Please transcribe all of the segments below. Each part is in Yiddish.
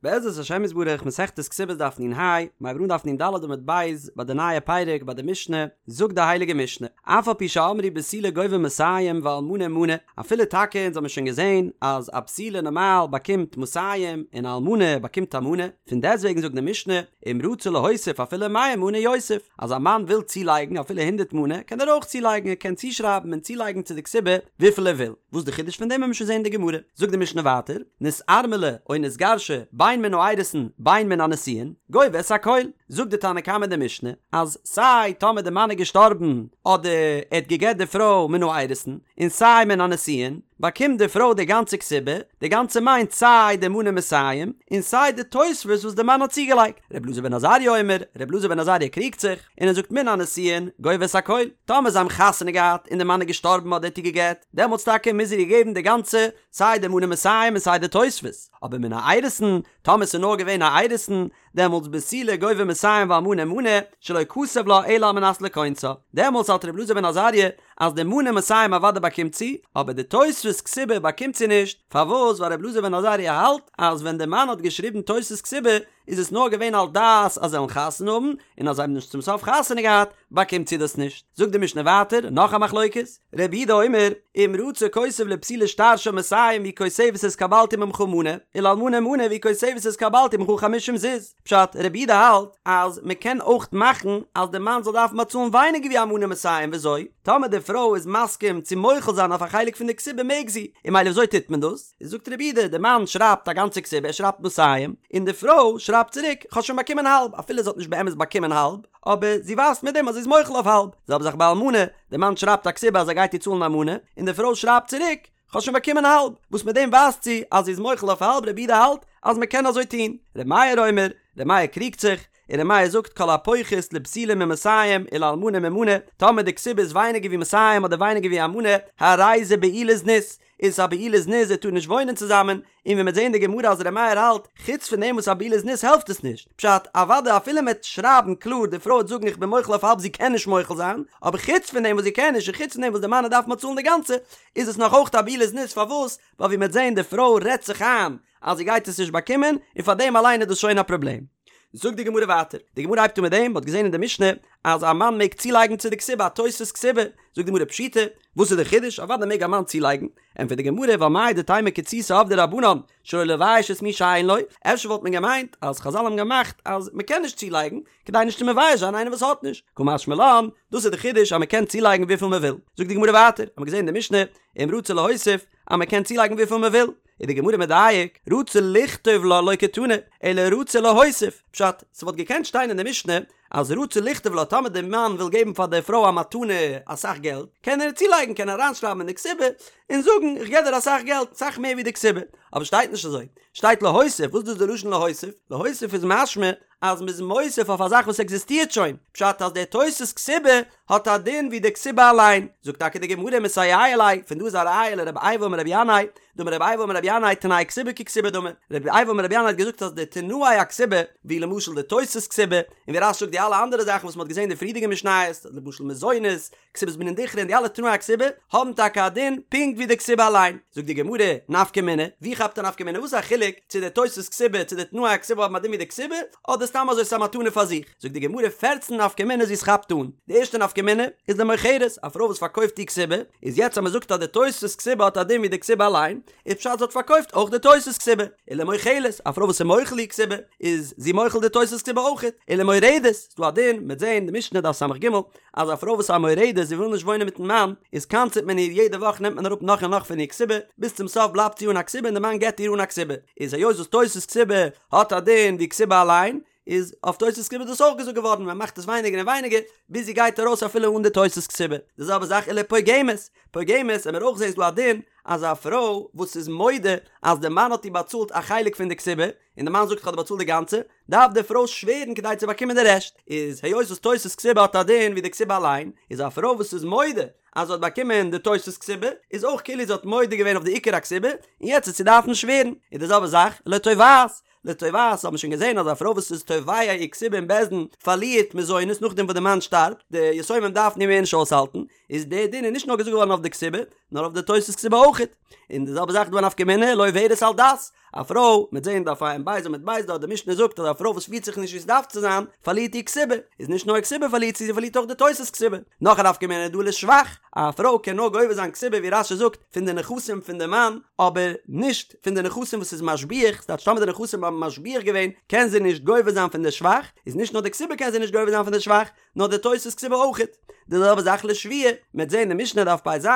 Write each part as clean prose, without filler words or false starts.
בעזרת השם יתברך מסכת כתובות דף נ"ה, מיר הייבן אן דף נ"ד עמוד ב', ביי די נייע פרק ביי די משנה, זאגט די הייליגע משנה, אף על פי שאמרו בתולה גובה מאתים ואלמנה מנה, אפילו טאקע אונז האבן שוין געזען אז א בתולה נארמאל באקומט מאתים און א אלמנה באקומט א מנה, פון דעסטוועגן זאגט די משנה, אם רצה להוסיף אפילו מאה מנה יוסיף, אז א מאן וויל צולייגן אפילו הונדערט מנה קען ער אויך צולייגן, ער קען צושרייבן און צולייגן צו די כתובה וויפיל ער וויל. וואס די חידוש פון דעם וועלן מיר שוין זעהן אין די גמרא. זאגט די משנה ווייטער, נתארמלה או נתגרשה בין מן האירוסין בין מן הנישואין, גובה את הכל. זאגט די תנא קמא אין די משנה, אז סיי טאמער די מאן איז געשטארבן אדער ער האט גע'גט די פרוי מן האירוסין, און סיי מן הנישואין, באקומט די פרוי די גאנצע כתובה, די גאנצע מיינט סיי די מנה מאתים, און סיי די תוספות וואס די מאן האט צוגעלייגט. ר' אלעזר בן עזריה אומר, ר' אלעזר בן עזריה קריגט זיך, און ער זאגט מן הנישואין גובה את הכל, טאמער זיי האבן חתונה געהאט און די מאן איז געשטארבן אדער האט איר גע'גט, דעמאלטס טאקע מוז ער איר געבן די גאנצע, סיי די מנה מאתים און סיי די תוספות, אבער מן האירוסין, טאמער ס'איז נאר געווען א אירוסין, דעמאלטס בתולה גובה מאתים ואלמנה מנה, שלא כתב לה אלא על מנת לכונסה, דעמאלטס האלט ר' אלעזר בן עזריה אז די מנה מאתים אוודאי באקומט זי, אבער די תוספות כתובה באקומט זי נישט, פארוואס? ווייל ר' אלעזר בן עזריה האלט אז ווען די מאן האט געשריבן תוספות כתובה איז עס נאר געווען על דעת אז זיי וועלן חתונה האבן, און אז זיי האבן נישט צום סוף חתונה געהאט, באקומט זי דאס נישט. זאגט די משנה ווייטער, נאך א מחלוקת, רבי יהודה אומר, אם רצה כותב לבתולה שטר של מאתים והיא כותבת התקבלתי ממך מנה, ולאלמנה מנה והיא כותבת התקבלתי ממך חמישים זוז. פשט, רבי יהודה האלט אז מען קען אויך מאכן אז די מאן זאל דארפן באצאלן ווייניגער ווי א מנה מאתים, וויאזוי? טאמער די פרוי איז מסכים צו מוחל זיין אויף א חלק פון די כתובה מעג זי, און ממילא וויאזוי טוט מען דאס? זאגט רבי יהודה, די מאן שרייבט א גאנצע כתובה, ער שרייבט מאתים, און די פרוי שרייבט צוריק, כ'האב שוין באקומען האלב, אפילו זי האט נישט באמת באקומען האלב, אבער זי ווייזט מיט דעם אז זי איז מוחל אויף האלב, זעלבע זאך ביי אלמנה, די מאן שרייבט א כתובה אז ער גייט איר צאלן א מנה, און די פרוי שרייבט צוריק, כ'האב שוין באקומען האלב, וואס מיט דעם ווייזט זי אז זי איז מוחל אויף האלב, רבי יהודה האלט אז מען קען אזוי טון, רבי מאיר אומר, רבי מאיר קריגט זיך, און ר' מאיר זאגט כל הפוחת לבתולה ממאתים ולאלמנה ממנה, טאמער די כתובה איז ווייניגער ווי מאתים אדער ווייניגער ווי א מנה, הרי זה בעילת זנות, איז עס א בעילת זנות זיי טארן נישט וואוינען צוזאמען, און ווי מ'וועט זעהן אין די גמרא אז ר' מאיר האלט, חוץ פון דעם וואס א בעילת זנות העלפט עס נישט, פשט, אוודאי אפילו מ'עט שרייבן קלאר די פרוי וועט זאגן איך בין מוחל אויף האלב זי קען נישט מוחל זיין, אבער חוץ פון דעם וואס זי קען נישט און חוץ פון דעם וואס די מאן דארף באצאלן די גאנצע, איז עס נאך אויך א בעילת זנות פארוואס? ווייל ווי מ'עט זעהן די פרוי רעדט זיך איין אז זי גייט עס נישט באקומען, און פאר דעם אליין איז דאס שוין א פראבלעם. זאגט די גמרא ווייטער, די גמרא הייבט אן מיט דעם, מ'האט געזען אין די משנה אז א מאן מעג צולייגן צו די כתובה א תוספות כתובה, זאגט די גמרא פשיטא, וואס איז די חידוש, אוודאי מעג א מאן צולייגן, ענטפערט די גמרא, ווייל מהו דתימא קיצותא עבדו רבנן שלא לבייש את מי שאין לו, אפשר וואלט מען געמיינט אז חזל האבן געמאכט אז מ'קען נישט צולייגן, כדי נישט צו מבייש זיין איינער וואס האט נישט, קא משמע לן, דאס איז די חידוש אז מ'קען צולייגן וויפיל מ'וויל, זאגט די גמרא ווייטער, האט מען געזען אין די משנה, אם רצה להוסיף, אז מ'קען צולייגן וויפיל מ'וויל, איז די גמרא מדייק, רצה לכתוב לה לא קתני, אלא רצה להוסיף, פשט, ס'וואלט געקענט שטיין אין די משנה אז רצה לכתוב לה טאמער די מאן וויל געבן פאר די פרוי א מתנה אסאך געלט, קען ער צולייגן קען ער אריינשרייבן אין די כתובה און זאגן איך געב דיר אסאך געלט, אסאך מער ווי די כתובה, אבער שטייט נישט אזוי, שטייט להוסיף, וואס איז דאס די לשון להוסיף? להוסיף איז משמע אז מ'איז מוסיף אויף א זאך וואס עקזיסטירט שוין, פשט אז די תוספות כתובה האט א דין ווי די כתובה אליין, זאגט טאקע די גמרא מסייע ליה, פון דא איז א ראיה לרבי אייבו אמר רבי ינאי, דאמר רבי אייבו אמר רבי ינאי תנאי כתובה ככתובה דמי, רבי אייבו אמר רבי ינאי האט געזאגט אז די תנאי הכתובה, ווי למשל די תוספות כתובה, און ווי רש"י זאגט די אלע אנדערע זאכן וואס מ'האט געזען אין די פריערדיגע משניות, למשל מזונות, כתובת בנין דכרין און די אלע תנאי הכתובה האבן טאקע א דין פונקט ווי די כתובה אליין. זאגט די גמרא, נפקא מינה, ווי כאפט א נפקא מינה? וואס איז א חילוק צו די תוספות כתובה צו די תנאי הכתובה האבן א דין ווי די כתובה, אדער סתם אזוי ס'איז א מתנה פאר זיך? זאגט די גמרא פערצן נפקא מינות ווי עס כאפט אן. די ערשטע נפקא מינה איז למוכרת, א פרוי וואס פארקויפט איר כתובה, איז יעצט אז מען זאגט אז די תוספות כתובה האט א דין ווי די כתובה אליין, איז פשט זי האט פארקויפט אויך די תוספות כתובה. ולמוחלת, א פרוי וואס איז מוחל איר כתובה, איז זי מוחל די תוספות כתובה אויכעט. ולמורדת, ס'דא א דין, מ'וועט זען די משנה דף ס"ג, אז א פרוי וואס איז א מורדת זי וויל נישט וואוינען מיטן מאן, איז קנס'עט מען איר יעדע וואך נעמט מען אראפ נאך און נאך פון איר כתובה, ביז צום סוף בלייבט זי אן א כתובה און די מאן גט איר אן א כתובה, איז היות וואס תוספות כתובה האט א דין ווי כתובה אליין, איז אויף תוספות כתובה דאס אויך געזאגט געווארן, מען מאכט עס ווייניגער און ווייניגער, ביז זי גייט ארויס אפילו אן די תוספות כתובה. די זעלבע זאך ולפוגמת, פוגמת, וועמיר אויך זעהן איז דא א דין אז א פרוי וואס איז מודה אז די מאן האט איר באצאלט א חלק פון די כתובה, און די מאן זאגט איך האב דיר באצאלט די גאנצע, דארף די פרוי שווערן כדי צו באקומען די רעשט, איז היות וואס תוספות כתובה האט א דין ווי די כתובה אליין, איז א פרוי וואס איז מודה אז זי האט באקומען די תוספות כתובה, איז אויך כאילו זי האט מודה געווען אויף די עיקר הכתובה, און יעצט וועט זי דארפן שווערן, און די זעלבע זאך לתובעת, לתובעת האט מען שוין געזען אז א פרוי וואס איז תובע איר כתובה אין בית דין פארלירט מזונות נאכדעם וואס די מאן שטארבט, די יתומים דארפן איר מער נישט אויסהאלטן, איז די דין איז נישט נאר געזאגט געווארן אויף די כתובה, נאר אויף די תוס' כתובה אויכעט. און די זעלבע זאך דא א נפקא מינה לעוברת על דת, א פרוי, מ'עט זעהן דף ע"ב עמוד ב' דארט די משנה זאגט אז א פרוי וואס פירט זיך נישט ווי ס'דארף צו זיין, פארלירט איר כתובה, איז נישט נאר כתובה פארלירט זי, זי פארלירט אויך די תוס' כתובה. נאך א נפקא מינה איז דא לשבח, א פרוי קען נאר גובה זיין כתובה ווי רש"י זאגט, פון די נכסים פון די מאן, אבער נישט פון די נכסים וואס איז משביח, ס'טייטש טאמער די נכסים האבן משביח געווען, קען זי נישט גובה זיין פון די שבח, איז נישט נאר די כתובה קען זי נישט גובה זיין פון די שבח, נאר די תוס' כתובה אויכעט. די זעלבע זאך לשבועה, מ'עט זעהן אין משנה דף פ"ז,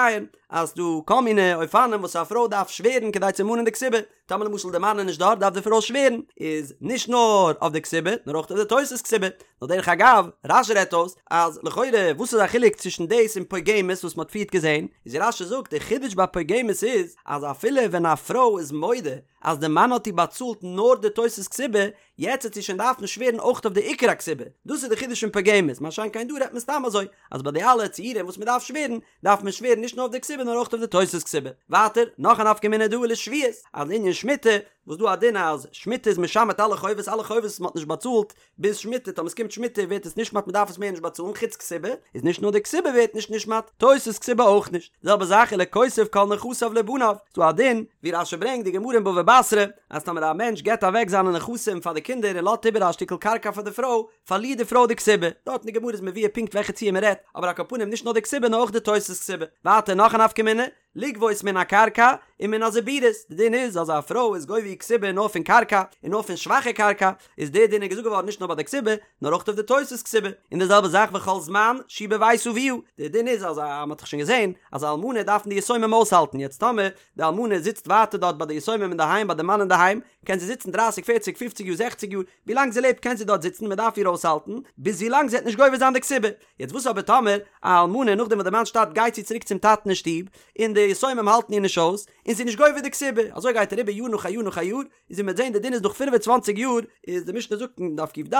אז ס'דא כל מיני אופנים וואס א פרוי דארף שווערן כדי צו מאנען די כתובה, טאמער למשל די מאן איז נישט דארט דארף די פרוי שווערן, איז נישט נאר אויף די כתובה נאר אויך אויף די תוס' כתובה. נאר דרך אגב, רש"י רעדט אויס אז לכאורה וואס איז א חילוק צווישן דאס און פוגמת וואס מ'האט פריערט געזעהן, איז רש"י זאגט די חידוש ביי פוגמת איז אז אפילו ווען א פרוי איז מודה אז די מאן האט איר באצאלט נאר די תוס' כתובה, יעצט וועט זי שוין דארפן שווערן אויך אויף די עיקר הכתובה, דאס איז די חידוש פון פוגמת, מה שאין כן דא רעדט מען סתם אזוי, אז ביי די אלע ציורים וואס מען דארף שווערן, דארף מען שווערן נישט נאר אויף די כתובה נאר אויך אויף די תוס' כתובה. ווייטער, נאך א נפקא מינה דא לשביעית, אז לענין שמיטה, וואס דא א דין אז שמיטה איז משמט אלע חובות, אלע חובות וואס מען האט נישט באצאלט ביז שמיטה, טאמער עס קומט שמיטה ווערט עס נשמט מען דארף עס מער נישט באצאלן חוץ כתובה, איז נישט נאר די כתובה ווערט נישט נשמט, תוס' כתובה אויך נישט. די זעלבע זאך ולכותב כל נכסיו לבניו, ס'דא א דין, ווי רש"י ברענגט די גמרא אין בבא בתרא, אז טאמער א מענטש געבט אוועק זיינע נכסים פאר די קינדער און לאזט איבער א שטיקל קרקע פאר די פרוי, פארלירט די פרוי די כתובה. דארט אין די גמרא איז מבואר פונקט וועלכע ציור מען רעדט, אבער על כל פנים נישט נאר די כתובה נאר אויך די תוס' כתובה. ווייטער נאך א נפקא מינה, לגבות מן הקרקע ומן הזיבורית, די דין איז אז א פרוי איז גובה איר כתובה נאר פון קרקע און נאר פון שוואכע קרקע, איז די דין איז געזאגט געווארן נישט נאר ביי די כתובה נאר אויך אויף די תוס' כתובה, און די זעלבע זאך וכל זמן שהיא בבית אביה, די דין איז אז א, מען האט דאך שוין געזען אז א אלמנה דארפן די יתומים אויסהאלטן, יעצט טאמער די אלמנה זיצט ווייטער דארט ביי די יתומים אינדערהיים ביי די מאן אינדערהיים, קען זי זיצן דרייסיג פערציג פופציג יאר זעכציג יאר, ווי לאנג זי לעבט קען זי דארט זיצן מען דארף איר אויסהאלטן, ביז ווי לאנג זי וועט נישט גובה זיין די כתובה. יעצט וואס אבער טאמער א אלמנה נאכדעם וואס די מאן שטארבט גייט זי צוריק צום טאטן אין שטוב, און די יתומים האלטן איר נישט אויס, און זי איז נישט גובה די כתובה, אזוי גייט אריבער יאר נאך א יאר נאך א יאר, איז ווי מ'וועט זען די דין איז נאך 25 יאר, איז די משנה זאגט אין דף ק"ד,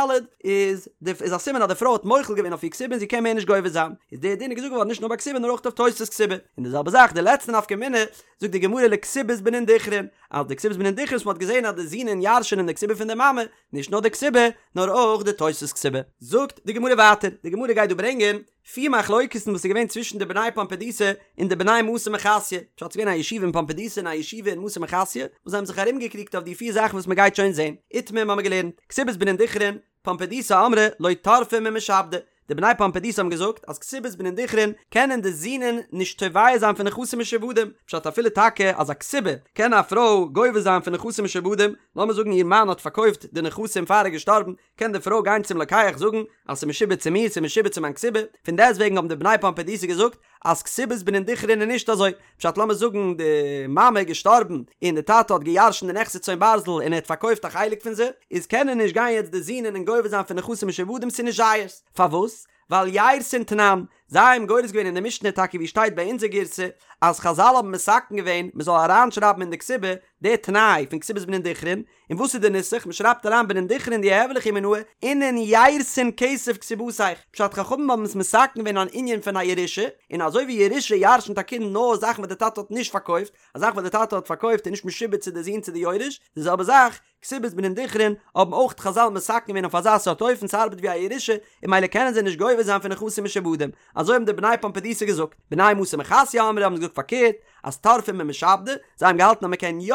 איז די איז א סימן אז די פרוי האט מוחל געווען אויף איר כתובה און זי קען מער נישט גובה זיין, איז די דין איז געזאגט געווארן נישט נאר ביי כתובה נאר אויך אויף תוס' כתובה, און די זעלבע זאך די לעצטע נפקא מינה, זאגט די גמרא לכתובת בנין דכרין, אז די כתובת בנין דכרין וואס מ'האט געזען אז די זינען ירש'ענען די כתובה פון די מאמע, נישט נאר די כתובה, נאר אויך די תוס' כתובה. זאגט די גמרא ווייטער, די גמרא גייט דא ברענגען פיר מחלוקת'ן וואס איז געווען צווישן די בני פומבדיתא און די בני מתא מחסיא, פשט ס'איז געווען א ישיבה אין פומבדיתא און א ישיבה אין מתא מחסיא, וואס זיי האבן זיך ארומגעקריגט אויף די פיר זאכן וואס מ'גייט שוין זען. איתמר האבן מיר געלערנט, כתובת בנין דכרין, פומבדיתא אמרי לא טרפי ממשעבדי, די בני פומבדיתא האבן געזאגט אז כתובת בנין דכרין קענען די זינען נישט תובע זיין פון נכסים משועבדים, פשט אפילו טאקע אז א כתובה קען א פרוי גובה זיין פון נכסים משועבדים, לאמיר זאגן איר מאן האט פארקויפט די נכסים פאר ער איז געשטארבן, קען די פרוי גיין צום לוקח זאגן אז ס'איז משועבד צו מיר, ס'איז משועבד צו מיין כתובה, פון דעסטוועגן האבן די בני פומבדיתא געזאגט אז כתובת בנין דכרין איז נישט אזוי, פשט לאמיר זאגן די מאמע איז געשטארבן און די טאטע האט געירשנט די נכסי צאן ברזל און ער האט פארקויפט א חלק פון זיי, איז קענען נישט גיין יעצט די זינען און גובה זיין פון נכסים משועבדים ס'איז נישט זייערס, פארוואס? ווייל יירתין תנן, זיי האבן גורס געווען אין די משנה טאקע ווי שטייט ביי אונזער גירסא אז חזל האבן מתקן געווען מ'זאל אריינשרייבן אין די כתובה די תנאי פון כתובת בנין דכרין, און וואס איז די נוסח? מען שרייבט אריין בנין דכרין דיהוו ליכי מינאי אינון יירתין כסף כתובתיך, פשט חכמים האבן עס מתקן געווען אן ענין פון א ירושה, און אזוי ווי ירושה ירשנט א קינד נאר זאכן וואס די טאטע האט נישט פארקויפט, א זאך וואס די טאטע האט פארקויפט איז נישט משועבד צו די זון צו די יורש, די זעלבע זאך, כתובת בנין דכרין, האבן אויך חזל מתקן געווען אויף אזא סארט אופן ס'ארבעט ווי א ירושה, און ממילא קענען זיי נישט גובה זיין פון נכסים משועבדים, אזוי האבן די בני פומבדיתא געזאגט, בני מתא מחסיא אמרי האבן געזאגט פארקערט, אז טרפי ממשעבדי, זיי האבן געהאלטן אז מען קען יא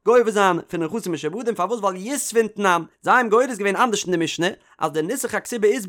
גובה זיין פון נכסים משועבדים, פארוואס ווייל יתבון תנן, זיי האבן גורס געווען אנדערש אין די משנה, אז די נוסח הכתובה איז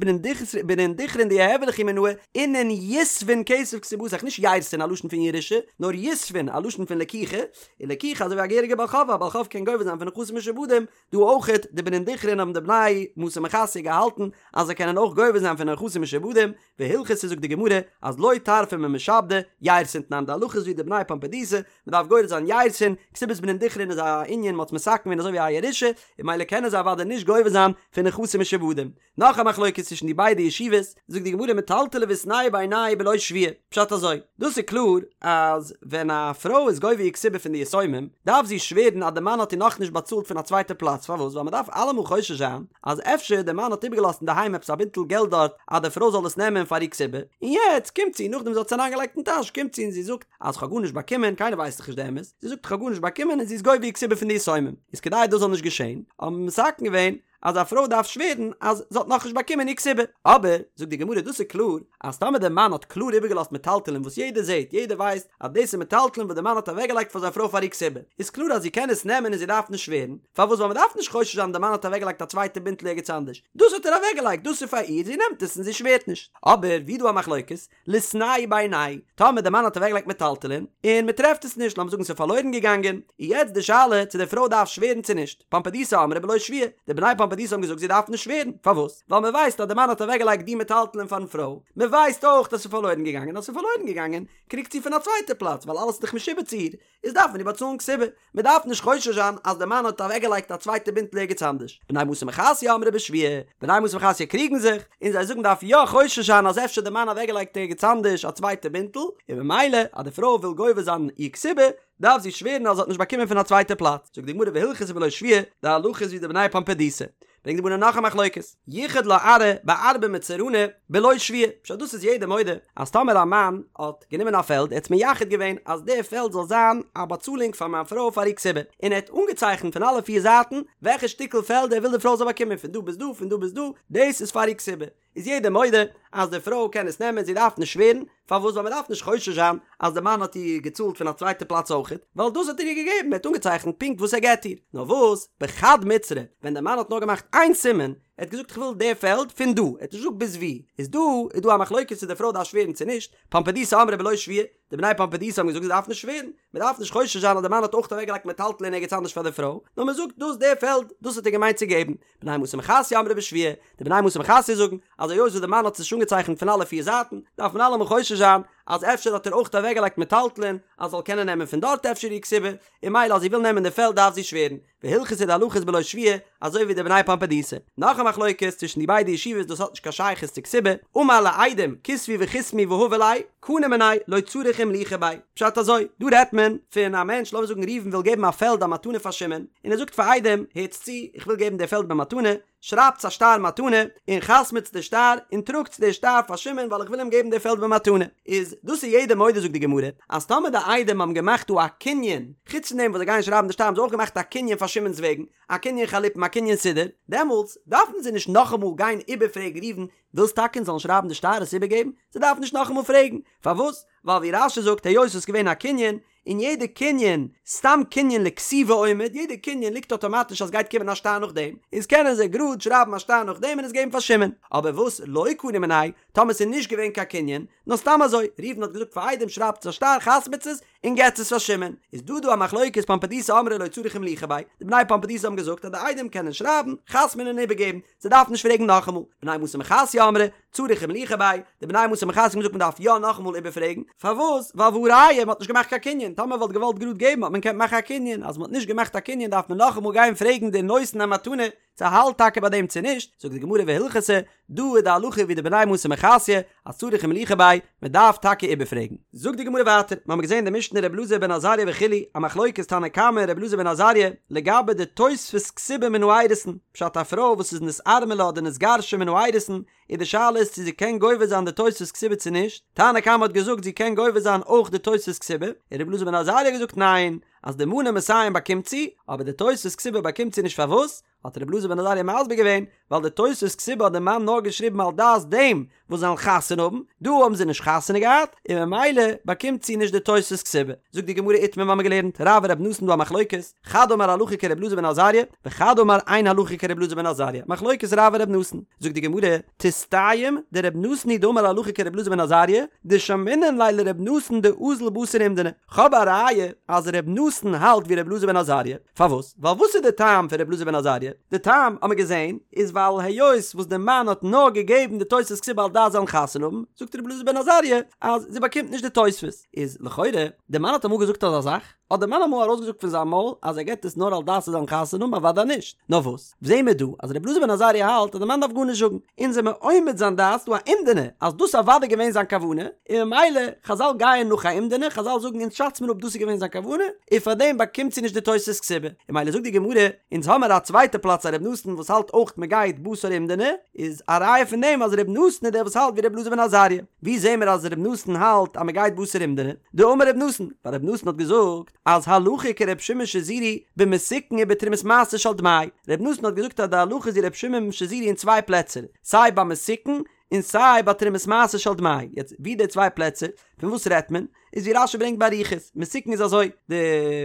בנין דכרין דיהוו ליכי מינאי, אינון יתבון כסף כתובתיך, נישט יירתין א לשון פון ירושה, נאר יתבון א לשון פון לקיחה, און לקיחה אזוי ווי א געהעריגע בעל חוב, א בעל חוב קען גובה זיין פון נכסים משועבדים, דא אויכעט, די בנין דכרין האבן די בני מתא מחסיא געהאלטן אז זיי קענען אויך גובה זיין פון נכסים משועבדים, והלכתא זאגט די גמרא אז לא טרפי ממשעבדי, יירתין תנן די הלכה איז ווי די בני פומבדיתא, מען דארף גורס זיין יירתין, כתובת בנין דכרין איז א ענין מ'האט עס מתקן געווען אזוי ווי א ירושה, און ממילא קענען זיי אוודאי נישט גובה זיין פון נכסים משועבדים. נאך א מחלוקת צווישן די ביידע ישיבות, זאגט די גמרא מטלטלי ואיתנהו בעינייהו בלא שבועה, פשט אזוי, דאס איז קלאר אז ווען א פרוי איז גובה איר כתובה פון די יתומים, דארף זי שווערן אז די מאן האט איר נאכנישט באצאלט פון א צווייטע פלאץ, פארוואס? ווייל מען דארף אלעמאל חושש זיין אז אפשר די מאן האט איבערגעלאזט אינדערהיים עפעס א בינטל געלט דארט אז די פרוי זאל עס נעמען פאר איר כתובה, און יעצט קומט זי, נאכדעם זי האט עס אריינגעלייגט אין טאש, קומט זי און זי זאגט אז כ'האב גארנישט באקומען, קיינער ווייסט דאך נישט די אמת, זי זאגט כ'האב גארנישט באקומען און זי איז גובה איר כתובה פון די יתומים, איז כדי דאס זאל נישט געשען, האט מען מתקן געווען. אז א פרוי דארף שווערן אז זי האט נאכנישט באקומען איר כתובה. אבער, זאגט די גמרא, דאס איז קלאר אז טאמער דער מאן האט קלאר איבערגעלאזט מטלטלין וואס יעדער זעט, יעדער ווייסט אז דאס איז מטלטלין וואס דער מאן האט אוועקגעלייגט פאר זיין פרוי פאר איר כתובה, איז קלאר אז זי קען עס נעמען און זי דארף נישט שווערן, פארוואס ווייל מען דארף נישט חושש זיין דער מאן האט אוועקגעלייגט א צווייטע בינטל ערגעץ אנדערש, דאס האט ער אוועקגעלייגט, דאס איז פאר איר, זי נעמט עס און זי שווערט נישט. אבער ווי דא א מחלוקת, ליתנהו בעיניה, טאמער דער מאן האט אוועקגעלייגט מטלטלין, און מען טרעפט עס נישט, לאמיר זאגן ס'איז פארלוירן געגאנגען, איז יעצט די שאלה צו די פרוי דארף שווערן צו נישט, פומבדיתא אמרי בלא שבועה, די בני פומבדיתא האבן געזאגט זי דארף נישט שווערן, פארוואס? ווייל מען ווייסט אז דער מאן האט אוועקגעלייגט די מטלטלין פארן פרוי, מען ווייסט אויך אז ס'איז פארלוירן געגאנגען, אז ס'איז פארלוירן געגאנגען, קריגט זי פון א צווייטע פלאץ, ווייל אלעס איז דאך משועבד צו איר, איז דארף מען איר באצאלן כתובה, מען דארף נישט חושש זיין אז דער מאן האט אוועקגעלייגט א צווייטע בינטל ערגעץ אנדערש. בני מתא מחסיא אמרי בשבועה, בני מתא מחסיא קריגן זיך, און זיי זאגן מ'דארף יא חושש זיין אז אפשר דער מאן אוועקגעלייגט ערגעץ אנדערש א צווייטע בינטל, און ממילא אז די פרוי וויל גובה זיין איר כתובה, דארף זי שווערן אז זי האט נישט באקומען פון א צווייטע פלאץ. זאגט די גמרא והלכתא בלא שבועה, די הלכה איז ווי די בני פומבדיתא. ברענגט די גמרא נאך א מחלוקת, ייחד לה ארעא בארבעה מצרני בלא שבועה, פשט דאס איז יעדער מודה אז טאמער א מאן האט גענומען א פעלד ער האט עס מייחד געווען אז די פעלד זאל זיין א באצאלונג פאר מיין פרוי פאר איר כתובה, און ער האט אנגעצייכנט פון אלע פיר זייטן וועלכע שטיקל פעלד ער וויל די פרוי זאל באקומען פון דא ביז דא פון דא ביז דא, דאס איז פאר איר כתובה, איז יעדער מודה אז די פרוי קען עס נעמען זי דארף נישט שווערן, פארוואס ווייל מען דארף נישט חושש זיין אז די מאן האט איר געצאלט פון א צווייטע פלאץ אויכעט, ווייל דאס האט ער איר געגעבן, ער האט אנגעצייכנט פונקט וואס ער געט איר, נאר וואס בחד מצרא, ווען די מאן האט נאר געמאכט איין סימן, ער האט געזאגט איך וויל די פעלד פון דא, ער האט נישט געזאגט ביז וואו, איז דא איז דא א מחלוקת צו די פרוי דארף שווערן צו נישט, פומבדיתא אמרי בלא שבועה, די בני פומבדיתא האבן געזאגט זי דארף נישט שווערן, מען דארף נישט חושש זיין אז די מאן האט אויך אוועקגעלייגט מטלטלין ערגעץ אנדערש פאר די פרוי, נאר מען זאגט דאס די פעלד, דאס האט ער געמיינט צו געבן. בני מתא מחסיא אמרי בשבועה, די בני מתא מחסיא זאגן אז היות וואס די מאן האט עס נישט אנגעצייכנט פון אלע פיר זייטן, דארף מען אלעמאל חושש זיין אז אפשר האט ער אויך אוועקגעלייגט מטלטלין אז זאל קענען נעמען פון דארט אפשר איר כתובה, און ממילא אז זי וויל נעמען די פעלד דארף זי שווערן. והלכתא די הלכה איז בלא שבועה, אזוי ווי די בני פומבדיתא. נאך א מחלוקת צווישן די ביידע ישיבות דאס האט נישט קיין שייכות צו כתובה, אמר לעדים כתבו וחתמו והבו ליה, קנו מיניה לא צריך אימלוכי ביה. פשט אזוי, דא רעדט מען פון א מענטש לאמיר זאגן ראובן וויל געבן א פעלד א מתנה פאר שמעון, און ער זאגט פאר עדים, הערטס צו, איך וויל געבן די פעלד במתנה, שרייבטס א שטר מתנה, און חתמ'טס די שטר, און טראגטס די שטר פאר שמעון ווייל איך וויל אים געבן די פעלד במתנה. איז דאס איז יעדער מודה זאגט די גמרא, אז טאמער די עדים האבן געמאכט דא א קנין, חוץ פון דעם וואס זיי גייען שרייבן די שטר האבן זיי אויך געמאכט א קנין פאר שמעון'ס וועגן, א קנין חליפין א קנין סודר, דעמאלטס דארפן זיי נישט נאכאמאל גיין איבערפרעגן ראובן, ווילסט טאקע אונז זאלן שרייבן די שטר עס איבערגעבן? זיי דארפן נישט נאכאמאל פרעגן, פארוואס? ווייל ווי רש"י זאגט היות עס איז געווען א קנין, און יעדע קנין, סתם קנין לכתיבה עומד, יעדע קנין ליגט אטאמאטיש אז גייט קומען א שטר נאכדעם, איז קענען זיי גראד שרייבן א שטר נאכדעם און עס געבן פאר שמעון. אבער וואס לא קנו מיניה, טאמער ס'איז נישט געווען קיין קנין, נאר סתם אזוי, ראובן האט געזאגט פאר עדים שרייבטס א שטר חתמ'טס עס און געטס עס פאר שמעון, איז דא דא א מחלוקת פומבדיתא אמרי לא צריך אימלוכי ביה, די בני פומבדיתא האבן געזאגט אז די עדים קענען שרייבן, חתמ'ן און איבערגעבן, זיי דארפן נישט פרעגן נאכאמאל, בני מתא מחסיא אמרי, צריך אימלוכי ביה, די בני מתא מחסיא האבן געזאגט מען דארף יא נאכאמאל איבערפרעגן, פארוואס? ווייל והא ראיה מען האט נישט געמאכט קיין קנין, טאמער מען וואלט געוואלט גראד געבן האט מען געקענט מאכן א קנין, אז מען האט נישט געמאכט א קנין דארף מען נאכאמאל גיין פרעגן די נותן המתנה צו האלט טאקע ביי דעם צו נישט, זאגט די גמרא והלכתא, דא איז די הלכה ווי די בני מתא מחסיא, אז צריך אימלוכי ביה, מען דארף טאקע איבערפרעגן. זאגט די גמרא ווייטער, מיר האבן געזען אין די משנה ר' אלעזר בן עזריה וכו', א מחלוקת תנא קמא און ר' אלעזר בן עזריה, לגבי די תוספת כתובה מן האירוסין, פשט א פרוי וואס איז נתארמלה אדער נתגרשה מן האירוסין, איז די שאלה איז צו זי קען גובה זיין די תוספת כתובה צו נישט, תנא קמא האט געזאגט זי קען גובה זיין אויך די תוספת כתובה, און ר' אלעזר בן עזריה האט געזאגט ניין, אז די מנה מאתים באקומט זי, אבער די תוספת כתובה באקומט זי נישט פארוואס? האט רבי אלעזר בן עזריה מסביר געווען, ווייל די תוספת כתובה האט די מאן נאר געשריבן על דעת דעם וואס זיי וועלן חתונה האבן, דא האבן זיי נישט חתונה געהאט, און ממילא באקומט זי נישט די תוספת כתובה. זאגט די גמרא איתמר מיר האבן געלערנט, רב ורבי נתן דא א מחלוקת, חד אמר הלכה כרבי אלעזר בן עזריה, וחד אמר אין הלכה כרבי אלעזר בן עזריה, מחלוקת רב ורבי נתן. זאגט די גמרא, תסתיים דרבי נתן היא דאמר הלכה כרבי אלעזר בן עזריה, דשמעינן ליה לרבי נתן דאזיל בתר אומדנא. כ'האב א ראיה אז ר' נתן האלט ווי ר' אלעזר בן עזריה, פארוואס? ווייל וואס איז די טעם פון ר' אלעזר בן עזריה? די טעם האמיר געזען איז ווייל היות וואס די מאן האט נאר געגעבן די תוספת כתובה על דעת זיי וועלן חתונה האבן, זאגט ר' אלעזר בן עזריה אז זי באקומט נישט די תוספת, איז לכאורה די מאן האט אמאל געזאגט אזא זאך? האט די מאן אמאל ארויסגעזאגט פון זיין מויל אז ער געבט עס נאר על דעת זיי זאלן חתונה האבן? אוודאי נישט, נאר וואס? זעהן מיר דא אז ר' אלעזר בן עזריה האלט אז די מאן דארף גארנישט זאגן, אונז זעמיר אומד זיין דעת ס'דא א אומדנא אז דאס איז אוודאי געווען זיין כוונה, און ממילא חזל גייען נאך א אומדנא, חזל זאגן אונז שאץ מיר אפ דאס איז געווען זיין כוונה, און פארדעם באקומט זי נישט די תוספת כתובה, און ממילא זאגט די גמרא, אונז האמיר א צווייטע פלאץ א ר' נתן וואס האלט אויך מען גייט בתר אומדנא, איז א ראיה פון דעם אז ר' נתן איז דער וואס האלט ווי ר' אלעזר בן עזריה, ווי זעהן מיר אז ר' נתן האלט אז מען גייט בתר אומדנא? דאמר ר' נתן, ווייל ר' נתן האט געזאגט. אז הלכה כר' שמעון שזורי במסוכן ובתרומת מעשר של דמאי, ר' נתן האט געזאגט אז די הלכה איז ווי ר' שמעון שזורי אין צוויי פלעצער, סיי ביי מסוכן און סיי ביי תרומת מעשר של דמאי, יעצט ווי די צוויי פלעצער, פון וואס רעדט מען? איז ווי רשי ברענגט באריכות, מסוכן איז אזוי, די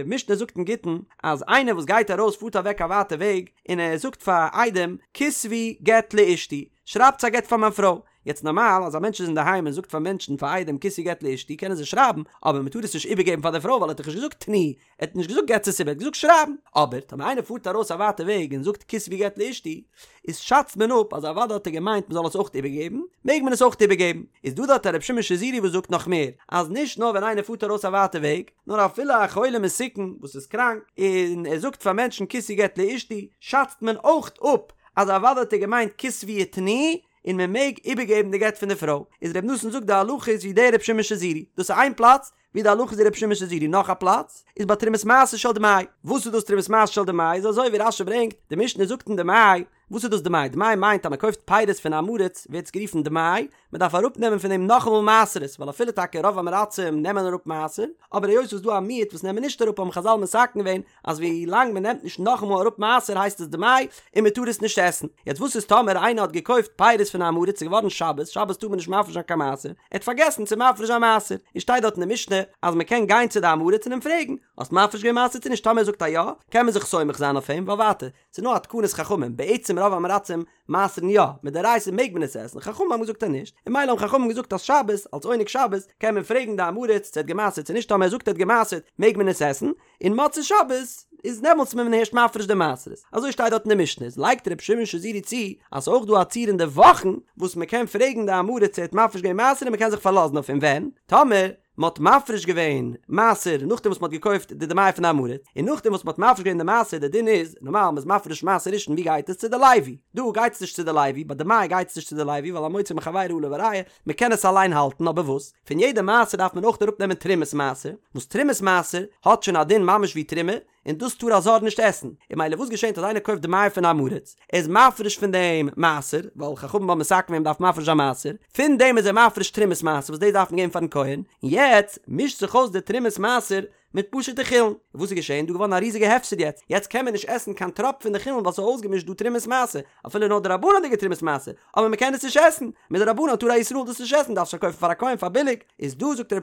משנה זאגט אין גיטין אז איינער וואס גייט ארויס פארט אוועק א ווייטע וועג און ער זאגט פאר עדים כתבו גט לאשתי, שרייבטס א גט פאר מיין פרוי, יעצט נארמאל אז א מענטש איז אינדערהיים און זאגט פאר מענטשן פאר עדים כתבו גט לאשתי קענען זיי שרייבן, אבער מען טאר עס נישט איבערגעבן פאר די פרוי ווייל ער האט דאך נישט געזאגט תנו, ער האט נישט געזאגט געטס עס איבער, ער האט געזאגט שרייבן. אבער טאמער איינער פארט ארויס א ווייטע וועג און זאגט כתבו גט לאשתי, איז שאצט מען אפ אז אוודאי האט ער געמיינט מען זאל עס אויך איבערגעבן, מעג מען עס אויך איבערגעבן. איז דא דארט א ר' שמעון שזורי וואס זאגט נאך מער, אז נישט נאר ווען איינער פארט ארויס א ווייטע וועג, נאר אפילו א חולה מסוכן וואס איז קראנק, און ער זאגט פאר מענטשן כתבו גט לאשתי, שאצט מען אויך אפ אז אוודאי האט ער געמיינט כתבו ותנו, און מען מעג איבערגעבן די גט פון די פרוי, איז ר' נתן זאגט די הלכה איז ווי דער ר' שמעון שזורי, דאס איז איין פלאץ ווי די הלכה איז ווי ר' שמעון שזורי, נאך א פלאץ איז ביי תרומת מעשר של דמאי, וואס איז דאס תרומת מעשר של דמאי, איז אזוי ווי רשי ברענגט, די משנה זאגט אין דמאי, וואס איז דאס דמאי, דמאי מיינט אז מען קויפט פירות פון עם הארץ ווערט עס גערופן דמאי, מען דארף אראפ נעמען פון דעם נאכאמאל מעשרות, ווייל אפילו טאקע רוב עם הארצים נעמען אראפ מעשר, אבער היות ס'איז דא א מיעוט וואס נעמען נישט אראפ האבן חזל מתקן געווען אז ווי לאנג מען נעמט נישט נאכאמאל אראפ מעשר הייסט עס דמאי און מען טאר עס נישט עסן. יעצט וואס איז טאמער איינער האט געקויפט פירות פון עם הארץ ס'איז געווארן שבת, שבת טאר מען נישט מפריש זיין קיין מעשר, ער האט פארגעסן צו מפריש זיין מעשר, און שטייט דארט אין די משנה אז מען קען גיין צו די עם הארץ און אים פרעגן, האסט מפריש געווען מעשר צו נישט טאמער ער זאגט א יא, קען מען זיך סומך זיין אויף אים, ווייל ווייטער, ס'איז נאר א תקנת חכמים, בעצם רוב עם הארצים מעשר'ן יא, מדאורייתא מעג מען עס עסן, חכמים האבן געזאגט אז נישט, און ממילא האבן חכמים געזאגט אז שבת, אלס עונג שבת, קען מען פרעגן די עם הארץ צו ער האט געמעשר'ט צו נישט, טאמער ער זאגט ער האט געמעשר'ט מעג מען עס עסן, און מוצאי שבת איז דעמאלטס מען הערשט מפריש די מעשרות, אזוי שטייט דארט אין די משנה, איז לייגט ר' שמעון שזורי צו אז ס'איז אויך דא א ציור אין די וואכן וואס מען קען פרעגן די עם הארץ צו ער האט מפריש געווען מעשר און מען קען זיך פארלאזן אויף אים ווען, טאמער, מען האט מפריש געווען מעשר נאכדעם וואס מען האט געקויפט די דמאי פון די עם הארץ, און נאכדעם וואס מען האט מפריש געווען די מעשר, די דין איז, נארמאל מען איז מפריש מעשר ראשון ווי גייט עס צו די לוי, דא גייט עס נישט צו די לוי, ביי דמאי גייט עס נישט צו די לוי ווייל המוציא מחבירו עליו הראיה, מען קען עס אליין האלטן, אבער וואס, פון יעדע מעשר דארף מען אויך אראפ נעמען תרומת מעשר, וואס תרומת מעשר האט שוין א דין ממש ווי תרומה, און דאס טאר א זר נישט עסן, און ממילא וואס געשענט אז איינער קויפט דמאי פון עם הארץ, ער איז מפריש פון דעם מעשר, ווייל חכמים האבן מתקן געווען מ'דארף מפריש זיין מעשר, פון דעם איז ער מפריש תרומת מעשר וואס דאס דארף מען געבן פארן כהן, און יעצט מישט זיך אויס די תרומת מעשר מיט פשוט'ע חולין, און וואס איז געשען? דא געווארן א ריזיגע הפסד יעצט, יעצט קען מען נישט עסן קיין טראפ פון די חולין ווייל ס'איז אויסגעמישט דא תרומת מעשר, אפילו נאר דרבנן'דיגע תרומת מעשר, אבער מ'קען עס נישט עסן, מדרבנן טאר א ישראל דאס נישט עסן, דארף עס פארקויפן פאר א כהן פאר ביליג, איז דא זאגט ר'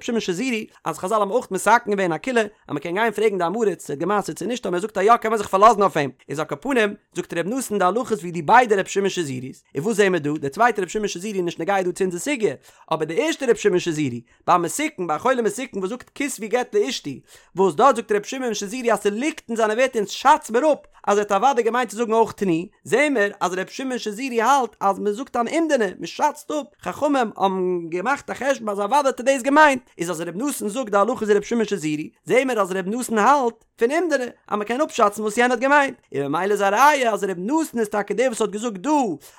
שמעון שזורי אז חזל האבן אויך מתקן געווען א קולא אז מ'קען גיין פרעגן די עם הארץ צו ער האט גע'מעשר'ט צו נישט, טאמער ער זאגט א יא קען מען זיך פארלאזן אויף אים, איז על כל פנים זאגט ר' נתן די הלכה איז ווי די ביידע ר' שמעון שזורי'ס, און וואס זעהן מיר דא, דער צווייטער ר' שמעון שזורי איז נישט נוגע דא צו אונזער סוגיא, אבער די ערשטע ר' שמעון שזורי, ביי מסוכן, ביי א חולה מסוכן וואס זאגט כתבו גט לאשתי, וואס דארט זאגט ר' שמעון שזורי אז ס'ליגט אין זיינע ווערטער אונז שאץ מיר אפ אז ער האט אוודאי געמיינט צו זאגן אויך תנו, זעהן מיר אז ר' שמעון שזורי האלט אז מ'זאגט אן אומדנא, מ'שאצט אפ, חכמים האבן געמאכט א חשבון אז אוודאי האט ער דאס געמיינט, איז אז ר' נתן זאגט די הלכה איז ר' שמעון שזורי, זעהן מיר אז ר' נתן האלט פון אומדנא אז מ'קען אפשאצן וואס יענער האט געמיינט, און ממילא איז א ראיה אז ר' נתן איז טאקע דער וואס האט געזאגט דא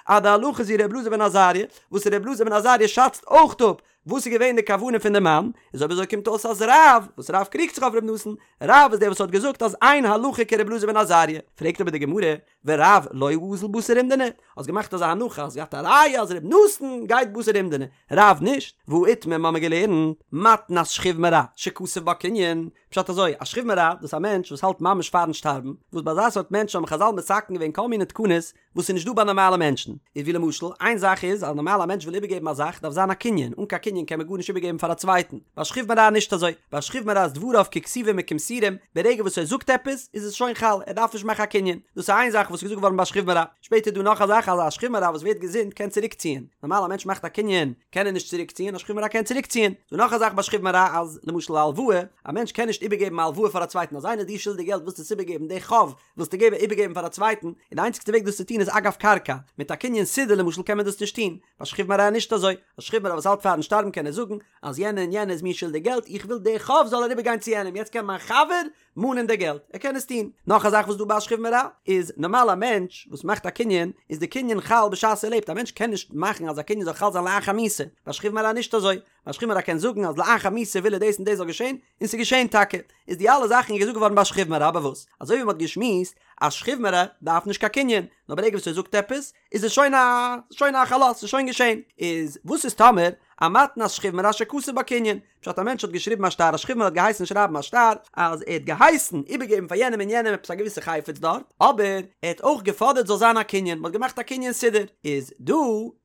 אז די הלכה איז ווי ר' אלעזר בן עזריה, וואס ר' אלעזר בן עזריה שאצט אויך אפ וואס איז געווען די כוונה פון די מאן? איז אויב אזוי קומט אויס אז רב, וואס רב קריגט זיך אויף ר' נתן, רב איז דער וואס האט געזאגט אז אין הלכה כר' אלעזר בן עזריה. פרעגט אבער די גמרא, ורב לא אזיל בתר אומדנא, האסט געמאכט אזא הנחה, האסט געהאט א ראיה אז ר' נתן גייט בתר אומדנא, רב נישט, והא איתמר מ'האמיר געלערנט, מתנת שכיב מרע, שכתב בה קנין, פשט אזוי, א שכיב מרע, דאס איז א מענטש וואס האלט ממש פארן שטארבן, וואס ביי אזא סארט מענטש האבן חזל מתקן געווען כל מיני תקנות, וואס איז נישט דא ביי נארמאלע מענטשן, איז ווי למשל, איין זאך איז אז נארמאל א מענטש וויל איבערגעבן א זאך דארף זיין א קנין, אן קיין קנין קען מען גארנישט איבערגעבן פאר א צווייטן, ביי שכיב מרע נישט אזוי, ביי שכיב מרע איז דבריו ככתובים וכמסורים, ברגע וואס ער זאגט עפעס איז עס שוין חל, ער דארף נישט מאכן א קנין, דאס איז איין זאך וואס איז געזאגט געווארן ביי שכיב מרע, שפעטער איז דא נאך א זאך אז א שכיב מרע וואס ווערט געזונט קען צוריק ציען, נארמאל א מענטש מאכט א קנין קען ער נישט צוריק ציען, א שכיב מרע קען צוריק ציען, דא נאך א זאך ביי שכיב מרע אז למשל א הלוואה, א מענטש קען נישט איבערגעבן א הלוואה פאר א צווייטן, אז איינער איז דיר שולדיג געלט ווילסטו עס איבערגעבן די חוב ווילסטו געבן איבערגעבן פאר א צווייטן, און די איינציגסטע וועג דאס צו טון איז אגב קרקע, מיט א קנין סודר למשל קען מען דאס נישט טון, ביי שכיב מרע נישט אזוי, א שכיב מרע וואס האלט פארן שטארבן קען ער זאגן אז יענער און יענער איז מיר שולדיג געלט איך וויל די חוב זאל אריבער גיין צו יענעם יעצט קען מיין חבר מאנען די געלט, ער קען עס טון. נאך א זאך וואס דא ביי א שכיב מרע איז, נארמאל א מענטש וואס מאכט א קנין איז די קנין חל בשעת ער לעבט, א מענטש קען נישט מאכן אז א קנין זאל חל זיין לאחר מיתה, ביי שכיב מרע נישט אזוי, א שכיב מרע קען זאגן אז לאחר מיתה וויל ער דאס און דאס זאל געשען, און ס'איז געשען טאקע. איז די אלע זאכן איז געזאגט געווארן ביי שכיב מרע, אבער וואס? אזוי ווי מ'האט געשמועסט אז שכיב מרע דארף נישט קיין קנין, נאר ברגע וואס ער זאגט עפעס, איז עס שוין א שוין א חלות, ס'איז שוין געשען. איז וואס איז טאמער א מתנת שכיב מרע שכתב בה קנין? פשט א מענטש האט געשריבן א שטר א שכיב מרע האט געהייסן שרייבן א שטר אז ער האט געהייסן איבערגעבן פאר יענעם און יענעם עפעס א געוויסע חפץ דארט אבער ער האט אויך געפאדערט זאל זיין א קנין מען האט געמאכט א קנין סודר איז דא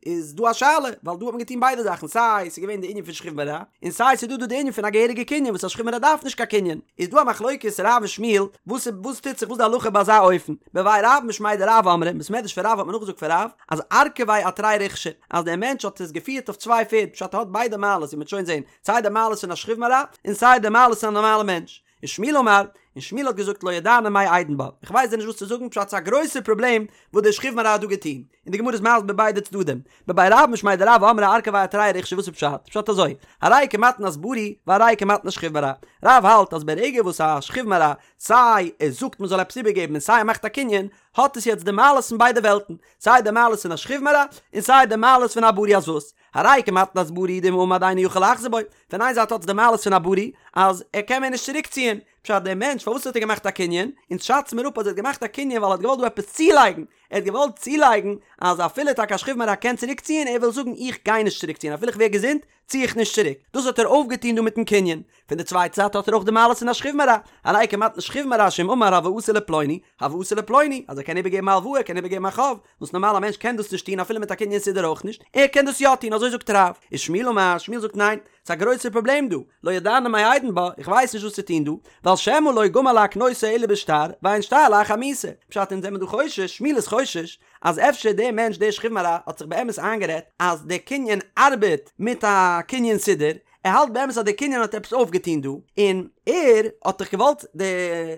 איז דא א שאלה ווייל דא האט מען געטון ביידע זאכן סיי ס'איז געווען די ענין פון שכיב מרע און סיי ס'איז דא דא די ענין פון א געהעריגע קנין וואס א שכיב מרע דארף נישט קיין קנין איז דא א מחלוקת רב און שמואל וואס וואס טוט זיך וואס די הלכה ביי אזא אופן בבי רב משמיה דרב אמרי בית מדרש פון רב האט מען נאכגעזאגט פון רב אז ארכביה אתרי ריכשי אז דער מענטש האט עס געפירט אויף צוויי פערד, פשט ער האט ביידע מעלות ווי מ'וועט שוין זען, סיי די מעלות פון א שכיב מרע, און סיי די מעלות פון א נארמאלע מענטש. ושמואל אמר, און שמואל האט געזאגט לא ידענא מאי אידון בה, איך ווייס דיר נישט וואס צו זאגן, פשט ס'איז א גרויסער פראבלעם וואס דער שכיב מרע האט דא געטון, און די גמרא איז מסביר ביידע צדדים, בבי רב משמיה דרב אמרי ארכביה אתרי ריכשי וואס איז פשט? פשט אזוי, הרי כמתנת בריא והרי כמתנת שכיב מרע, רב האלט אז ברגע וואס א שכיב מרע סיי ער זאגט מ'זאל עפעס איבערגעבן און סיי ער מאכט א קנין, האט עס יעצט די מעלות פון ביידע וועלטן, סיי די מעלות פון א שכיב מרע און סיי די מעלות פון א בריא אז וואס? הרי כמתנת בריא דאם עמד אינו יכול לחזור בו, פון איין זייט האט עס די מעלות פון א בריא אז ער קען מער נישט צוריק ציען, פשט דער מענטש פארוואס האט ער געמאכט א קנין? אונז שאצן מיר אפ אז ער האט געמאכט א קנין ווייל ער האט געוואלט דא עפעס צולייגן, ער האט געוואלט צולייגן אז אפילו טאקע א שכיב מרע קען צוריק ציען ער וויל זאגן איך גיי נישט צוריק ציען אפילו איך ווער געזונט צי איך נישט צוריק, דאס האט ער אויפגעטון דא מיטן קנין. פון די צווייטע זייט האט ער אויך די מעלות פון א שכיב מרע, הרי כמתנת שכיב מרע שאם אמר הלוואתי לפלוני, הלוואתי לפלוני, אז ער קען איבערגעבן א הלוואה, ער קען איבערגעבן א חוב, וואס נארמאל א מענטש קען דאס נישט טון אפילו מיט א קנין סודר אויך נישט, ער קען דאס יא טון, אזוי זאגט רב. ושמואל אמר, שמואל זאגט ניין, ס'איז א גרויסער פראבלעם דא, לא ידענא מאי אידון בה, איך ווייס נישט וואס צו טון דא, ווייל שמא לא גמר להקנותו אלא בשטר, ואין שטר לאחר מיתה. פשט אונז זעמער דא חושש, שמואל איז חושש, אז אפשר דער מענטש דער שכיב מרע האט זיך באמת איינגערעדט אז דער קנין ארבעט מיט א קנין סודר, ער האלט באמת אז דער קנין האט עפעס אויפגעטון דא, און ער האט דאך געוואלט די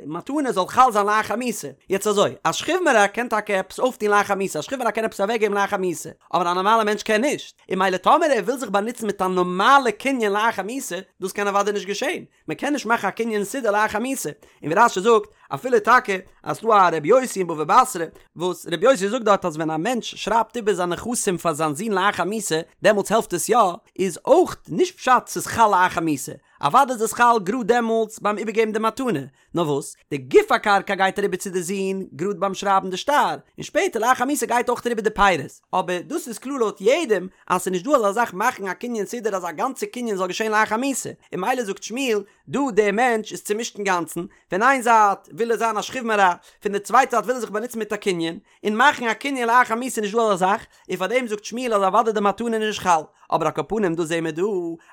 מתנה זאל חל זיין לאחר מיתה. יעצט אזוי, א שכיב מרע קען טאקע עפעס אויפטון לאחר מיתה, א שכיב מרע קען עפעס אוועקגעבן לאחר מיתה, אבער א נארמאלער מענטש קען נישט, און ממילא טאמער ער וויל זיך באנוצן מיט א נארמאלע קנין לאחר מיתה, דאס קען אוודאי נישט געשען, מען קען נישט מאכן א קנין סודר לאחר מיתה, און ווי רש"י זאגט, אפילו טאקע אז ס'דא א רבי יוסי אין בבא בתרא, וואס רבי יוסי זאגט דארט אז ווען א מענטש שרייבט איבער זיין נכסים פאר זיין זון לאחר מיתה, דעמאלטס העלפט עס יא, איז אויך נישט פשט ס'איז חל לאחר מיתה, אוודאי איז עס חל גראד דעמאלטס ביים איבערגעבן די מתנה, נאר וואס, די גוף הקרקע גייט אריבער צו די זון גראד ביים שרייבן די שטר, און שפעטער לאחר מיתה גייט אויך אריבער די פירות, אבער דאס איז קלאר לויט יעדעם אז ס'איז נישט דא אזא זאך מאכן א קנין סודר אז א גאנצע קנין זאל געשען לאחר מיתה, און ממילא זאגט שמואל, דא דער מענטש איז צומישט אינגאנצן, פון איין זייט וויל ער זיין א שכיב מרע, פון די צווייטע זייט וויל ער זיך באנוצן מיט א קנין, און מאכן א קנין לאחר מיתה איז נישט דא אזא זאך, און פאר דעם זאגט שמואל אז אוודאי די מתנה איז נישט חל, אבער על כל פנים דא זעהן מיר דא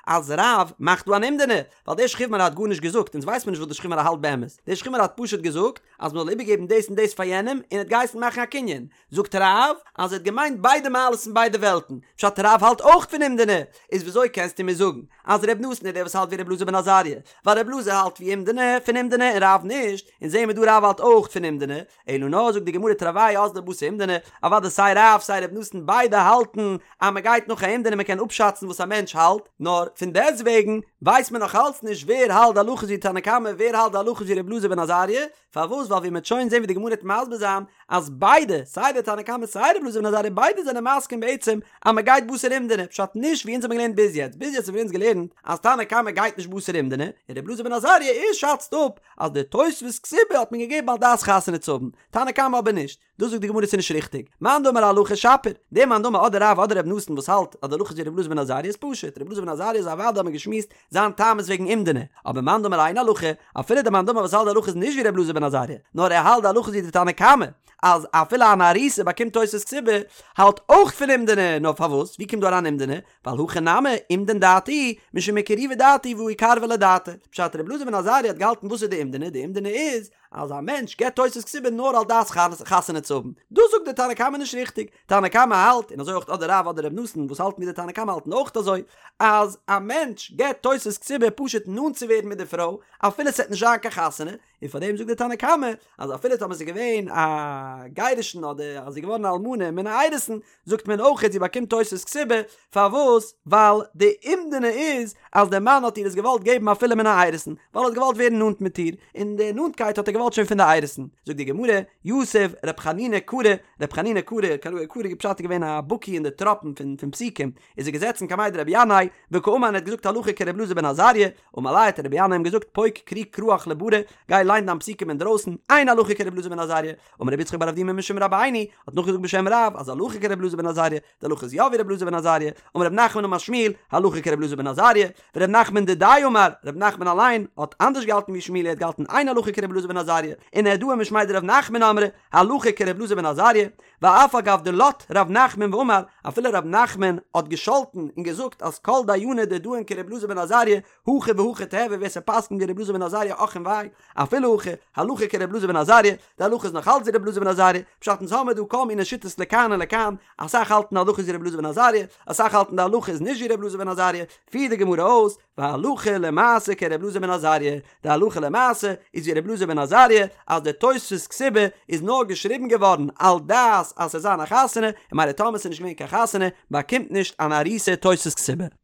אז רב מאכט דא אן אומדנא, ווייל דער שכיב מרע האט גארנישט געזאגט, אונז ווייסט מיר נישט וואס דער שכיב מרע האלט באמת, דער שכיב מרע האט פשוט געזאגט אז מען זאל איבערגעבן דאס און דאס פאר יענעם, און ער האט געהייסן מאכן א קנין, זאגט רב אז ער האט געמיינט ביידע מעלות פון ביידע וועלטן, פשט רב האלט אויך פון אומדנא, איז וויאזוי קענסטו מיר זאגן אז ר' נתן איז דער וואס האלט ווי ר' אלעזר בן עזריה, ווייל ר' אלעזר האלט ווי אומדנא פון אומדנא און רב נישט, אונז זעהן מיר דא רב האלט אויך פון אומדנא, אלא נאר זאגט די גמרא תרוייהו אזלי בתר אומדנא, אוודאי סיי רב סיי ר' נתן ביידע האלטן אז מען גייט נאך א אומדנא מען קען אפשאצן וואס א מענטש האלט, נאר פון דעסטוועגן ווייסט מען נאך אלץ נישט ווער האלט די הלכה איז ווי תנא קמא ווער האלט די הלכה איז ווי ר' אלעזר בן עזריה, פארוואס ווייל ווי מען וועט שוין זען ווי די גמרא וועט מסביר זיין אז ביידע סיי די תנא קמא סיי ר' אלעזר בן עזריה ביידע זענען מסכים בעצם אז מען גייט בתר אומדנא, פשט נישט ווי אונז האבן געלערנט ביז יעצט, ביז יעצט האבן אונז געלערנט אז תנא קמא גייט נישט בתר אומדנא, און ר' אלעזר בן עזריה ער שאצט אפ אז די תוספת כתובה האט מען געגעבן על דעת חתונה צו האבן, תנא קמא אבער נישט. דאס זאגט די גמרא ס'איז נישט ריכטיג. מאן דאמר הלכה שפיר. דער מאן דאמר אדער רב אדער ר' נתן וואס האלט אז די הלכה איז ווי ר' אלעזר בן עזריה איז פשוט. ר' אלעזר בן עזריה איז אוודאי האט מען געשמועסט זיין טעם איז וועגן אומדנא. אבער מאן דאמר אין הלכה, אפילו דער מאן דאמר וואס האלט די הלכה איז נישט ווי ר' אלעזר בן עזריה, נאר ער האלט די הלכה איז ווי די תנא קמא, אז אפילו אן ארוסה באקומט תוספת כתובה, האלט אויך פון אומדנא, נאר פארוואס? ווי קומט דא אריין אומדנא? ווייל הכא נמי, אומדן דעתה משום אקרובי דעתה והא איקרבא ליה דעתיה. פשט ר' אלעזר בן עזריה האט געהאלטן וואס איז די אומדנא? די אומדנא איז אז א מענטש געבט תוספת כתובה נאר על דעת חתונה צו האבן. דאס זאגט די תנא קמא נישט ריכטיג. תנא קמא האלט, און אזוי אויך אדער רב אדער ר' נתן וואס האלטן ווי די תנא קמא האלטן אויך אזוי, אז א מענטש געבט תוספת כתובה פשוט נאנט צו ווערן מיט די פרוי אפילו ס'וועט נישט זיין קיין חתונה, און פאר דעם זאגט די תנא קמא אז אפילו טאמער ס'איז געווען א גירושין אדער אז זי איז געווארן א אלמנה מן האירוסין זאגט מען אויך זי באקומט תוספת כתובה, פארוואס? ווייל די אומדנא איז אז דער מאן האט איר עס געוואלט געבן אפילו מן האירוסין, ווייל ער האט געוואלט ווערן נאנט מיט איר, און די נאנטקייט האט ער געוואלט שוין פון די אירוסין. זאגט די גמרא, יתיב ר' חנינא קרא, ר' חנינא קרא, קרא פשט איז געווען א בקי אין די טראפן פון פסוקים, איז ער געזעצן קמיה דרבי ינאי, וקאמר און ער האט געזאגט הלכה כר' אלעזר בן עזריה, אמר ליה האט רבי ינאי אים געזאגט פוק קרי קראך לברא, גיי ליין. ליין דיין פסוקים אינדרויסן, אין הלכה כר' אלעזר בן עזריה, אמר רבי יצחק בר אבדימי משום רבינו, האט נאכגעזאגט בשם רב אז הלכה כר' אלעזר בן עזריה, די הלכה איז יא ווי ר' אלעזר בן עזריה, אמר רב נחמן אמר שמואל, הלכה כר' אלעזר בן עזריה, ור' נחמן דידיה אמר, ר' נחמן אליין האט אנדערש געהאלטן ווי שמואל ער האט געהאלטן אין הלכה כר' אלעזר בן עזריה, ונהרדעא משמיה דרב נחמן אמרי, הלכה כר' אלעזר בן עזריה, ואף על גב דלט ר' נחמן ואמר, אפילו ר' נחמן האט געשאלטן און געזאגט אז כל דייני דדאין כר' אלעזר בן עזריה, הכי והכי תיהוי ווער ס'פסק'נט ווי ר' אלעזר בן עזריה אך און וויי, אפילו הכי, הלכה כר' אלעזר בן עזריה, די הלכה איז נאך אלץ ווי ר' אלעזר בן עזריה, פשט אונז האמיר דא כל מיני שיטות לכאן און לכאן, אסאך האלטן די הלכה איז ווי ר' אלעזר בן עזריה, אסאך האלטן די הלכה איז נישט ווי ר' אלעזר בן עזריה, פירט די גמרא אויס, והלכה למעשה כר' אלעזר בן עזריה, די הלכה למעשה איז ווי ר' אלעזר בן עזריה, אז די תוספת כתובה איז נאר געשריבן געווארן על דעת אז ס'זאל זיין א חתונה, און ממילא טאמער ס'איז נישט געווען קיין חתונה, באקומט נישט אן ארוסה תוספת כתובה.